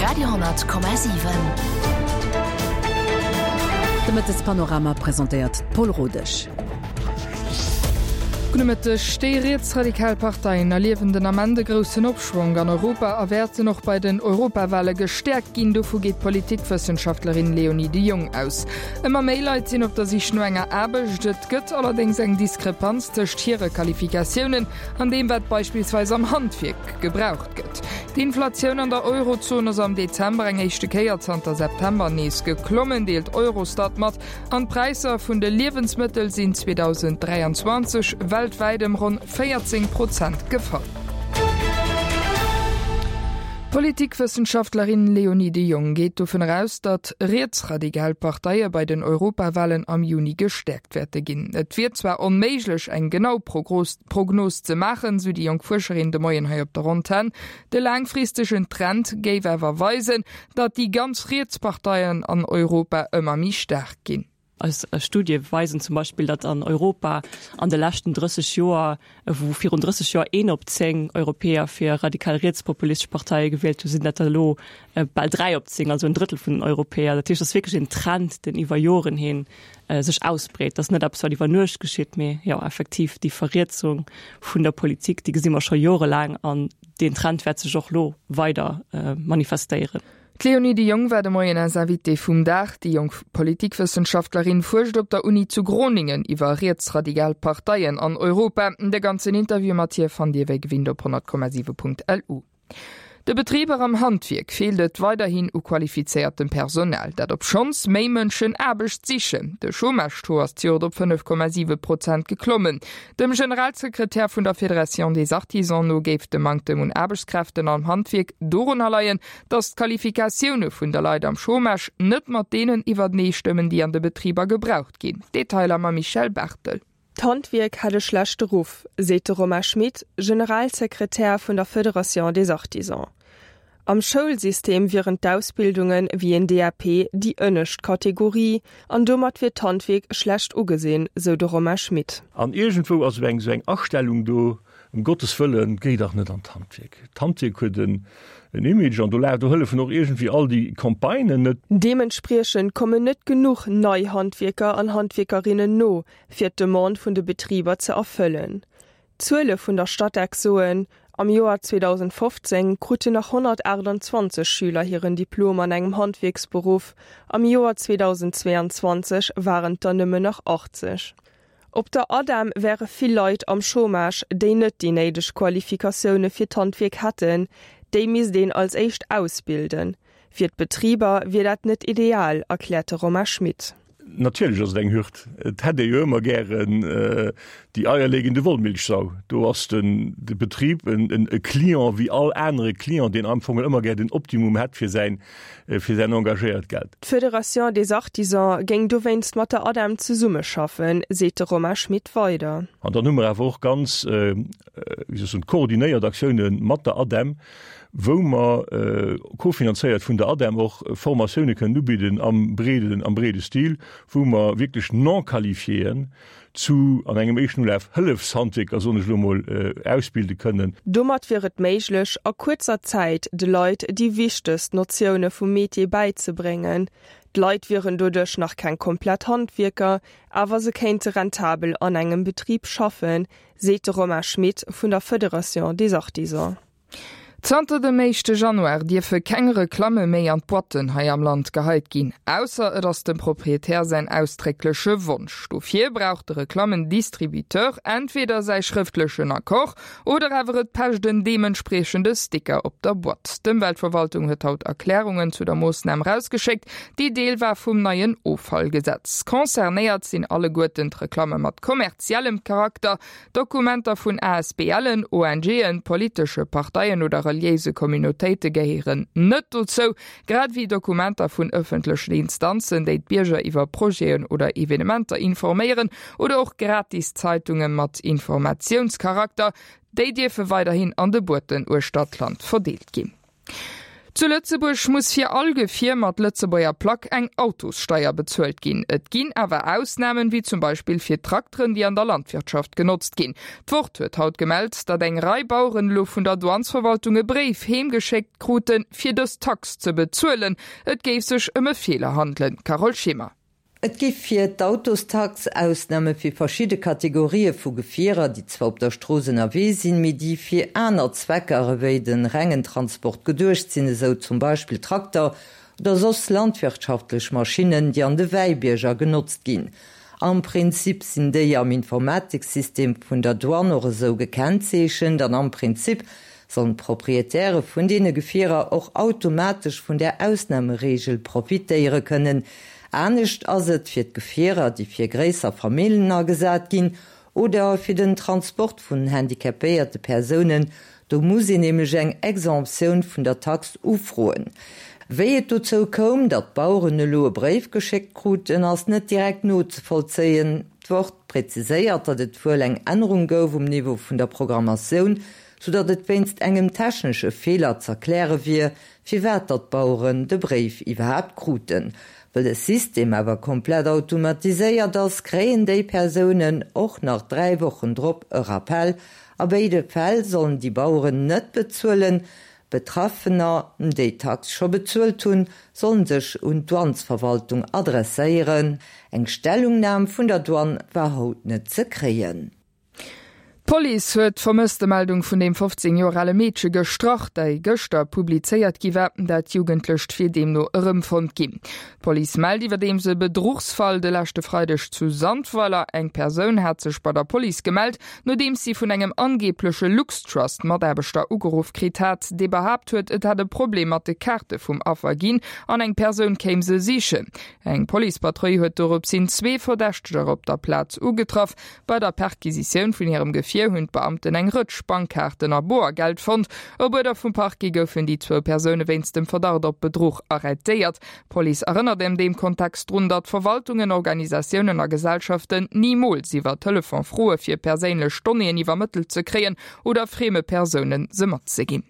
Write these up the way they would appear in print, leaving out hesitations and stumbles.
Radio 10,7. De Mëttespanorama presentéiert d'Paul Rodesch. Gudde Mëtteg. Déi rietsradikal Parteien erliewen den Ament e groussen Opschwonk an Europa a wäerten och bei den Europawale gestäerkt ginn. Dovu geet d'Politikwëssenschaftlerin Léonie de Jong aus. Ëmmer méi Leit sinn op der Sich no enger Aarbecht. Et gëtt allerdéngs eng Diskrepanz tëscht hire Qualifikatiounen an deem, wat beispillsweis am Handwierk gebraucht gëtt. D'Inflatioun an der Eurozon ass am Dezember eng éischte Kéier zanter September nees geklommen, deelt Eurostat mat. An d'Präisser vun de Liewensmëttel sinn 2023 weltwäit ëm ronn 14 Prozent gefall. D'Politikwëssenschaftlerin Léonie de Jong geet dovun eraus, datt rietsradikal Parteie bei den Europawalen am Juni gestäerkt wäerte ginn. Et wier zwar onméiglech, eng genau Prognos ze maachen, sou déi jonk Fuerscherin de Moien hei op der Antenn. De laangfristegen Trend géif awer weisen, datt déi ganz riets Parteien an Europa ëmmer méi staark ginn. Eis Studie weisen zum Beispill, datt an Europa an de leschten 30 Joer, wou virun 30 Joer een op 10 Europäer fir radikal rietspopulistesch Parteie gewielt hunn, sinn dat der elo bal 3 op 10, also en Drëttel vun den Europäer. Dat heescht, et ass wierklech een Trend, deen iwwer Joren hin sech ausbreet. Dat ass net eppes, wat iwwer Nuecht geschitt, mee jo effektiv déi Verrietsung vun der Politik, déi gesi mer scho jorelaang an deen Trend wäert sech och elo weider manifestéieren. D'Léonie de Jong war de Moien eis Invitée vum Dag. Déi jonk Politikwëssenschaftlerin fuerscht op der Uni zu Groningen iwwer rietsradigal Parteien an Europa. De ganzen Interview mat hir fannt Dir wéi gewinnt op 100,7.lu. De Betriber am Handwierk feelt et weiderhin u qualifizéiertem Personal. Dat obschonns méi Mënschen Aarbecht sichen. De Chômage-Taux ass d'Joert op 5,7 Prozent geklommen. Dem Generalsekretär vun der Fédération des Artisans no géif de Manktem un Aarbechtskräften am Handwierk dorunner leien, datt d'Qualifikatioune vun de Leit am Chômage net mat deenen iwwertenee stëmmen, déi an de Betriber gebraucht ginn. Detailer mam Michèle Barthel. D'Handwierk hätt e schlechte Ruff, seet de Romain Schmit, Generalsekretär vun der Fédération des Artisans. Am Schoulsystem wieren d'Ausbildunge wéi een DAP déi ënnescht Kategorie an domat wier d'Handwierk schlecht ugesinn, sou de Romain Schmit. An iergendwou ass esou eng esou eng Astellung do, Ëm Gottes Wëllen, géi dach net an d'Handwierk. D'Handwierk huet en Image an do la do hëllefen och iergendwéi all déi Campagnen net. Deementspriechend kommen net genuch nei Handwierker an Handwierkerinnen no, fir d'Demande vun de Betriber ze erfëllen. D'Zuele vun der Statec soen, am Joer 2015 kruten nach 128 Schüler hiren Diplom an engem Handwierksberuff, am Joer 2022 waren et der nëmmen nach 80. Op der ADEM wäre vill Leit am Chômage, déi net déi néideg Qualifikatioune fir d'Handwierk hätten. Déi misst een als éischt ausbilden. Fir d'Betriber wier dat net ideal, erkläert de Romain Schmit. Natierlech ass et eng Hürd. Et hätt ee jo ëmmer gären déi eierlegende Wollmilchsau. Do ass den de Betrib en e Client wéi all anere Client, deen am Fong ëmmer gär den Optimum hätt fir säin fir säin engagéiert Geld. D'Fédération des Artisans géing dowéinst mat der ADEM zesummeschaffen, seet de Romain Schmit weider. An dann hu mer awer och ganz, wéi soll ech soen, koordinéiert Aktioune mat der ADEM, wou mer, kofinanzéiert vun der ADEM, och Formatioune kënnen ubidden am breeden, am breede Stil, wou mer wierklech Non-qualifiéen zu, an engem éischten Ulaf, Hëllefshandwierker, soen ech elo emol, ausbilde kënnen. Domat wier et méiglech, a kuerzer Zäit de Leit déi wichtegst Notioune vum Metier bäizebréngen. D'Leit wieren doduerch nach keng komplett Handwierker, awer se kéinte rentabel an engem Betrib schaffen, seet de Romain Schmit vun der Federation des Artisans. Zanter dem éischte Januar dierfe keng Reklamme méi an d'Boîtten hei am Land geheit ginn, ausser et ass dem Proprietär säin ausdréckleche Wonsch. Dofir brauch de Reklammendistributeur entweder säi schrëftlechen Accord oder awer et pecht en deementspriechende Sticker op der Boîte. D'Ëmweltverwaltung huet haut Erklärungen zu der Moossnam rausgeschéckt, déi Deel war vum neien Offallgesetz. Concernéiert sinn alleguerten d'Reklamme mat kommerziellem Charakter, Dokumenter vun ASBLen, ONGen, politesche Parteien oder reliéise Communautéite gehéieren net dozou, grad ewéi Dokumenter vun ëffentlechen Instanzen, déi d'Bierger iwwer Projeten oder Evenementer informéieren, oder och gratis Zeitunge mat Informatiounscharakter. Déi dierfe weiderhin an de Boîten uechter d'Land verdeelt ginn. Zu Lëtzebuerg muss fir all Gefier mat Lëtzebuerger Plack eng Autossteier bezuelt ginn. Et ginn awer Ausnamen, wéi zum Beispill fir Trakteren, déi an der Landwirtschaft genotzt ginn. D'Wort huet haut gemellt, datt eng Rei Baueren elo vun der Douanesverwaltung e Bréif heemgeschéckt kruten, fir dës Tax ze bezuelen. Et géif sech ëm e Feeler handelen. Carole Schimmer. Et gi fir d'Autostax Ausname fir verschidde Kategorië vu Gefierer, déi zwar op der Strooss ënnerwee sinn, mee déi fir aner Zwecker ewéi de rengen Transport geduecht sinn, esou zum Beispill Trakter oder soss landwirtschaftlech Maschinnen, déi an de Wäibierger genotzt ginn. Am Prinzip sinn déi am Informatiksystem vun der Douane och esou gekennzeechent an am Prinzip sollen d'Proprietäre vun deene Gefierer och automatesch vun där Ausnamereegel profitéiere kënnen. Anescht ass et fir d'Gefierer, déi fir gréisser Famillen agesat ginn oder fir den Transport vun handicapéierte Persounen. Do muss een nämlech eng Exemptioun vun der Tax ufroen. Wéi et dozou koum, datt d'Baueren elo e Bréif geschéckt kruten, ass net direkt nozevollzéien. D'Wort präziséiert, datt et wuel eng Ännerung gouf um Niveau vun der Programmatioun, soudatt et wéinst engem technesche Feeler z'erkläre wier, firwat datt d'Baueren de Bréif iwwerhaapt kruten. Well de System awer komplett automatiséiert ass, kréien déi Persounen och nach 3 Wochen drop e Rappel. A béide Fäll sollen déi Baueren net bezuelen. Betraffener, déi d'Tax scho bezuelt hunn, sollen sech un d'Douanesverwaltung adresséieren. Eng Stellungnam vun der Douane war haut net ze kréien. D'Police huet d'Vermësstemeldung vun deem 15 Joer ale Meedche gestrach, déi gëschter publizéiert gi war. Dat Jugendlecht wier deemno erëmfonnt ginn. D'Police mellt iwwerdeems e Bedruchsfall de leschte Freideg zu Sandweiler. Eng Persoun hat sech bei der Police gemellt, nodeems si vun engem angeebleche LuxTrust-Mataarbechter ugeruff kritt hat, dee behaapt huet, et hätt e Problem mat de Kaarte vum Affer ginn an eng Persoun kéim se sichen. Eng Policepatrull huet doropshin zwee Verdächteger op der Plaz ugetraff. Bei der Perquisitioun vun hirem Gefier hunn d'Beamten eng Rëtsch Bankkaarten a Boergeld fonnt. Op Uerder vum Parquet goufen déi zwou Persoune wéinst dem Verdacht op Bedruch arrêtéiert. D'Police erënnert an deem Kontext drun, datt Verwaltungen, Organisatiounen a Gesellschaften nimools iwwer Telefon froe fir perséinlech Donnéeën iwwermëttelt ze kréien oder frieme Persounen se matzeginn.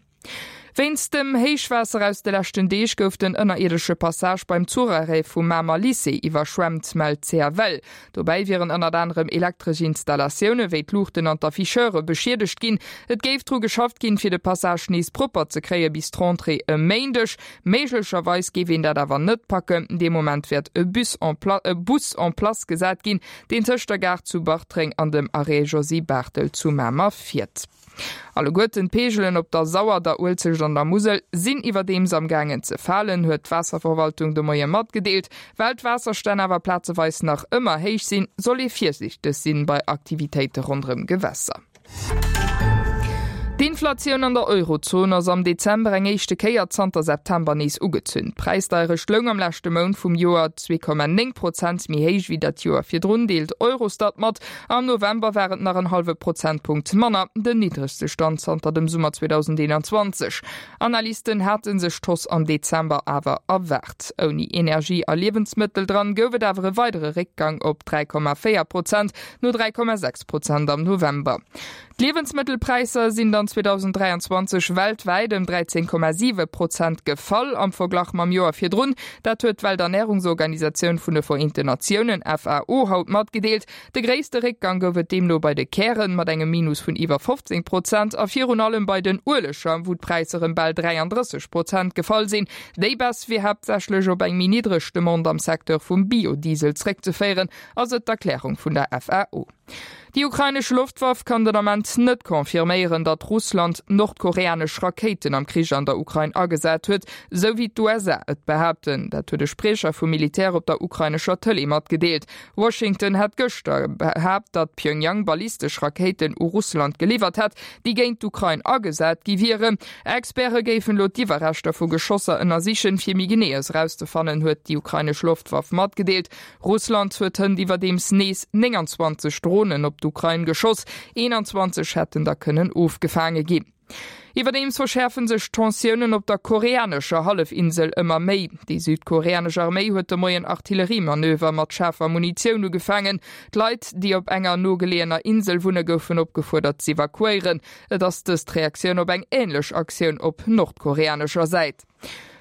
Wéinst dem Héichwaasser aus de leschten Deeg gouf den ënnerierdesche Passage beim Zucharrêt vum Mamer Lycée iwwerschwemmt, mellt d'CFL. Dobäi wieren ënnert anerem elektresch Installatioune wéi d'Luuchten an d'Afficheure beschiedegt ginn. Et géif dru geschafft ginn, fir de Passage nees propper ze kréie bis d'Rentrée e Méindeg. Méiglecherweis géif een dat awer net packen. Dee Moment wäert e Bus en Bus en place gesat ginn, deen tëscht der Gare zu Bartreng an dem Arrêt Josy Barthel zu Mamer fiert. Alleguerten d'Peegelen op der Sauer, der Uelzecht an der Musel sinn iwwerdeems am gaangen ze falen, huet d'Waasserverwaltung de Moie matgedeelt. Well d'Waasserstänn awer plazeweis nach ëmmer héich sinn, soll ee virsiichteg sinn bei Aktivitéite ronderëm Gewässer. D'Inflatioun an der Eurozon ass am Dezember eng éischte Kéier zanter September nees ugezunn. D'Präisdeierecht loung am leschte Mount vum Joer 2,9 Prozent méi héich wéi dat Joer virdrun, deelt Eurostat mat. Am November war et nach en hallwe Prozentpunkt manner, den niddregste Stand zanter dem Summer 2021. Analysten hate sech d'Hausse am Dezember awer erwaart. Ouni Energie a Liewensmëttel dran gouf et awer e weidere Réckgang op 3,4 Prozent, no 3,6 Prozent am November. D'Liewensmëttelpräisser sinn dann 2023 weltwäit ëm 13,7 Prozent gefall am Verglach mam Joer virdrun. Dat huet d'Welternärungsorganisatioun vun de Vereenten Natiounen, FAO, haut matgedeelt. De gréisste Réckgang gouf et deemno bei de Kären mat engem Minus vun iwwer 15 Prozent a virun allem bei den Ueleger, wou d'Präisser ëm bal 33 Prozent gefall sinn. Déi Baisse wier haaptsächlech op eng méi niddreg Demande am Secteur vum Biodiesel zréckzeféieren, ass et d'Erklärung vun der FAO. Déi ukrainesch Loftwaff kann den Ament net confirméieren, datt Russland nordkoreanesch Rakéiten am Krich an der Ukrain agesat huet, sou wéi d'USA et behaapten. Dat huet e Spriecher vum Militär op der ukrainescher Tëlee matgedeelt. Washington hat gëschter behaapt, datt Pjöngjang ballistesch Rakéiten u Russland geliwwert hätt, déi géint d'Ukrain agesat gi wieren. Experte géifen elo d'Iwwerreschter vu Geschosser ënnersichen, fir méi Geneeës erauszefannen, huet déi ukrainesch Loftwaff matgedeelt. Russland huet hënt iwwerdeems nees 29 Dronen op d'Ukrain geschoss, 21 hätten der kënnen ofgefaange ginn. Iwwerdeems verschäerfe sech d'Tensiounen op der koreanescher Hallefinsel ëmmer méi. Déi südkoreanesch Arméi huet de Moien Artilleriemanöver mat schaarfer Munitioun ugefaangen. D'Leit, déi op enger nogeleeëner Insel wunne goufen opgefuerdert z'evakuéieren. Et ass dëst d'Reaktioun op eng änlech Aktioun op nordkoreanescher Säit.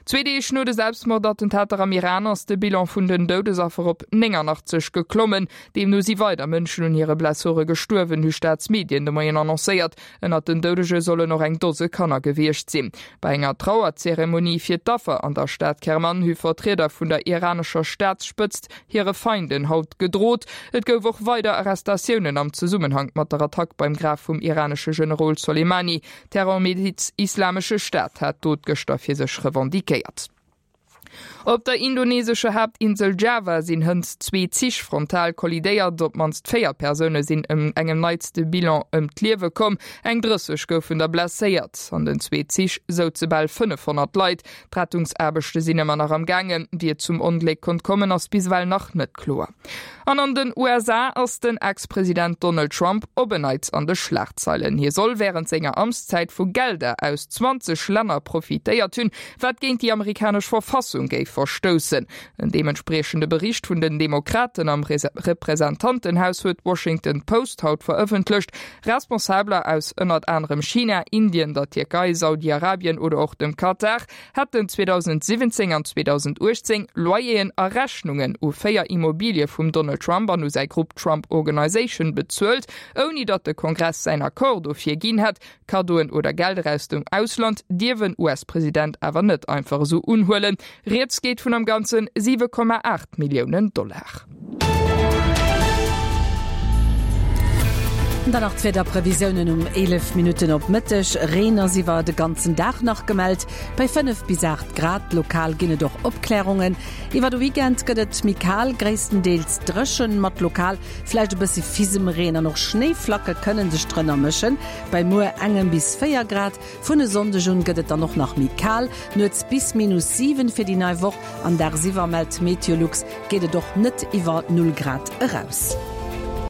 Zwee Deeg no de Selbstmordattentater am Iran ass de Bilan vun den Doudesaffer op 89 geklommen. Deemno si weider Mënschen un hire Blessure gestuerwen, hu Staatsmedien de Moien annoncéiert. Ënnert den Doudege sollen och eng Dose Kanner gewiescht sinn. Bei enger Trauerzeremonie fir d'Affer an der Stad Kerman hu Vertrieder vun der iranescher Staatsspëtzt hire Feinden haut gedrot. Et gouf och weider Arrestatiounen am Zesummenhank mat der Attack beim Graf vum iranesche Generol Soleimani. D'Terrormiliz Islamesche Staat hat d'Dot gëschter fir sech revendiquéiert. Op der indonesescher Haaptinsel Java sinn hënt zwee Zich frontal kollidéiert. Op d'mannst 4 Persoune sinn ëm engem neitste Bilan ëm d'Liewe komm, eng 30 goufen der blesséiert. An den zwee Zich souze bal 500 Leit. D'Rettungsaarbechte sinn ëmmer nach am gaangen. Wéi et zum Ongléck konnt kommen, ass bis ewell nach net kloer. An an den USA ass den Ex-President Donald Trump op en Neits an de Schlagzeilen. Hie soll wärend senger Amtszäit vu Gelder aus 20 Länner profitéiert hunn, wat géint déi amerikanesch Verfassung géif verstoussen. En deementspriechende Bericht vun den Demokraten am Representantenhaus huet d'Washington Post haut verëffentlecht. Responsabeler aus ënnert anerem China, Indien, der Tierkei, Saudi-Arabien oder och dem Katar hätten 2017 an 2018 Loyeren a Rechnungen u 4 Immobilie vum Donald Trump an u säi Grupp Trump Organization bezuelt, ouni datt de Kongress säin Accord dofir ginn hätt. Kaddoen oder Gelder aus dem Ausland dierf en US-President awer net einfach esou unhuelen. Rieds geet vun am Ganze 7,8 Milliounen Dollar. Dann nach d'Wiederprevisiounen um 11 Minutten op Mëtteg, Reen ass iwwer de ganzen Dag nach gemellt, bei 5 bis 8 Grad. Lokal ginn et och Opklärungen. Iwwer de Weekend gëtt et méi kal, gréisstendeels dréchen, mat lokal vläicht e bëssi Fisemreen an och Schnéiflacke kënne sech drënner mëschen, bei muer engem bis 4 Grad. Vun e Sonndeg un gëtt et dann och nach méi kal, nuets bis minus 7 fir déi nei Woch an dagsiwwer, mellt Meteolux, geet et och net iwwer 0 Grad eraus.